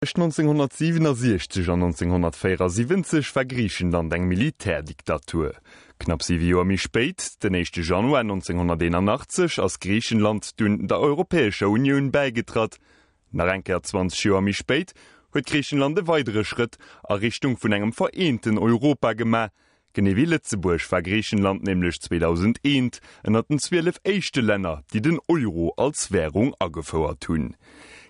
Tëscht 1967 an 1974 war Griichenland eng Militärdiktatur. Knapp siwe Joer méi spéit, den éischte Januar 1981, ass Griichenland dunn der Europäescher Unioun bäigetratt. Nach eng Kéier 20 Joer méi spéit huet Griichenland e weidere Schrëtt a Richtung vun engem vereenten Europa gemaach, Genee wéi Lëtzebuerg war Griichenland nämlech 2001 ënnert den 12 éischte Länner, déi den Euro als Wärung agefouert hunn.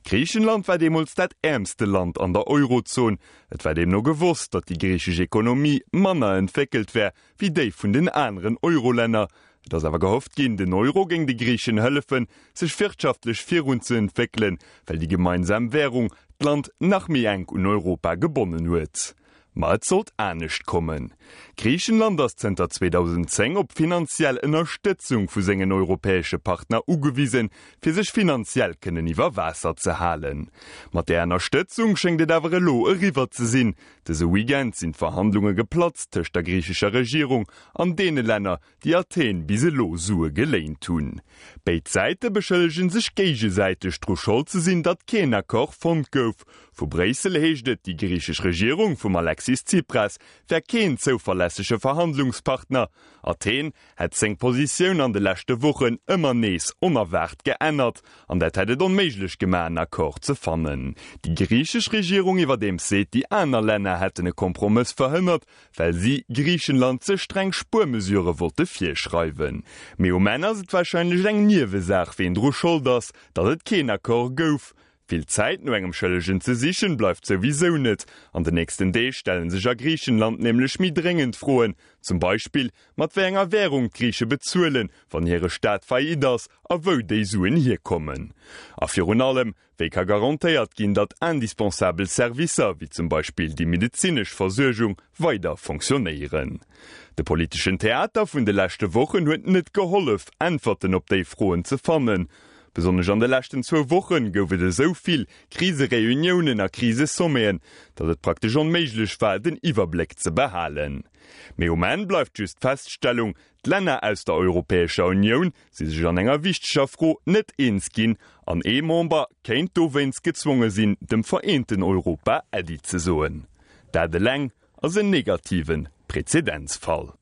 Griichenland war deemools dat äermste Land an der Eurozon. Et war deemno gewosst, datt déi griichesch Ekonomie manner entwéckelt wär wéi déi vun den aneren Eurolänner. Et ass awer gehofft ginn, den Euro géing de Griichen hëllefen, sech wirtschaftlech virunzeentwéckelen, well déi gemeinsam Wärung d'Land nach méi enk un Europa gebonnen huet. Ma et sollt anescht kommen. Griichenland ass zënter 2010 op finanziell Ënnerstëtzung vu sengen europäesche Partner ugewisen, fir sech finanziell kënnen iwwer Waasser ze halen. Mat där Ënnerstëtzung schéngt et awer elo eriwwer ze sinn. Dëse Weekend sinn d'Verhandlunge geplatzt tëscht der griichescher Regierung an deene Länner, déi Athen bis elo Sue geléint hunn. Béid Säite beschëllege sech géigesäiteg dru Schold ze sinn, datt keen Accord fonnt gouf. Vu Bréissel heescht et, déi griichesch Regierung vum Alexis Tsipras wär keen zouverlässege Verhandlungspartner. Athen hätt seng Positioun an de leschte Wochen ëmmer nees onerwaart geännert an dat hätt et onméiglech gemaach en Accord ze fannen. Déi griichesch Regierung iwwerdeems seet, déi aner Länner hätten e Kompromëss verhënnert, well si Griichenland ze streng Spuermesurë wollte virschreiwen. Mee um Enn ass et warscheinlech eng Niewesaach, ween dru Schold ass, datt et keen Accord gouf. Vill Zäit no engem Schëllegen ze sichen, bleift souwisou net. An den nächsten Deeg stelle sech a Griichenland nämlech méi dréngend Froen, zum Beispill mat wéi enger Wärung d'Griiche bezuelen, wann hire Staat faillite ass, a wou déi Suen hierkommen. A virun allem, Wéi ka garantéiert ginn, datt indispensabel Servicer, wéi zum Beispill déi medezinesch Versuergung, weider fonctionnéieren? De politeschen Theater vun de leschte Wochen huet net gehollef, Äntwerten op déi Froen ze fannen. Besonnesch an de leschten zwou Woche gouf et esou vill Krisereuniounen a Krisesommeten, datt et praktesch onméiglech war, den Iwwerbléck ze behalen. Mee um Enn bleift just d'Feststellung, D'Länner aus der Europäescher Unioun si sech an enger wichteger Fro net eens ginn an ee Member kéint dowéinst gezwonge sinn, dem vereenten Europa Äddi ze soen. Dat eleng ass en negative Prezedenzfall.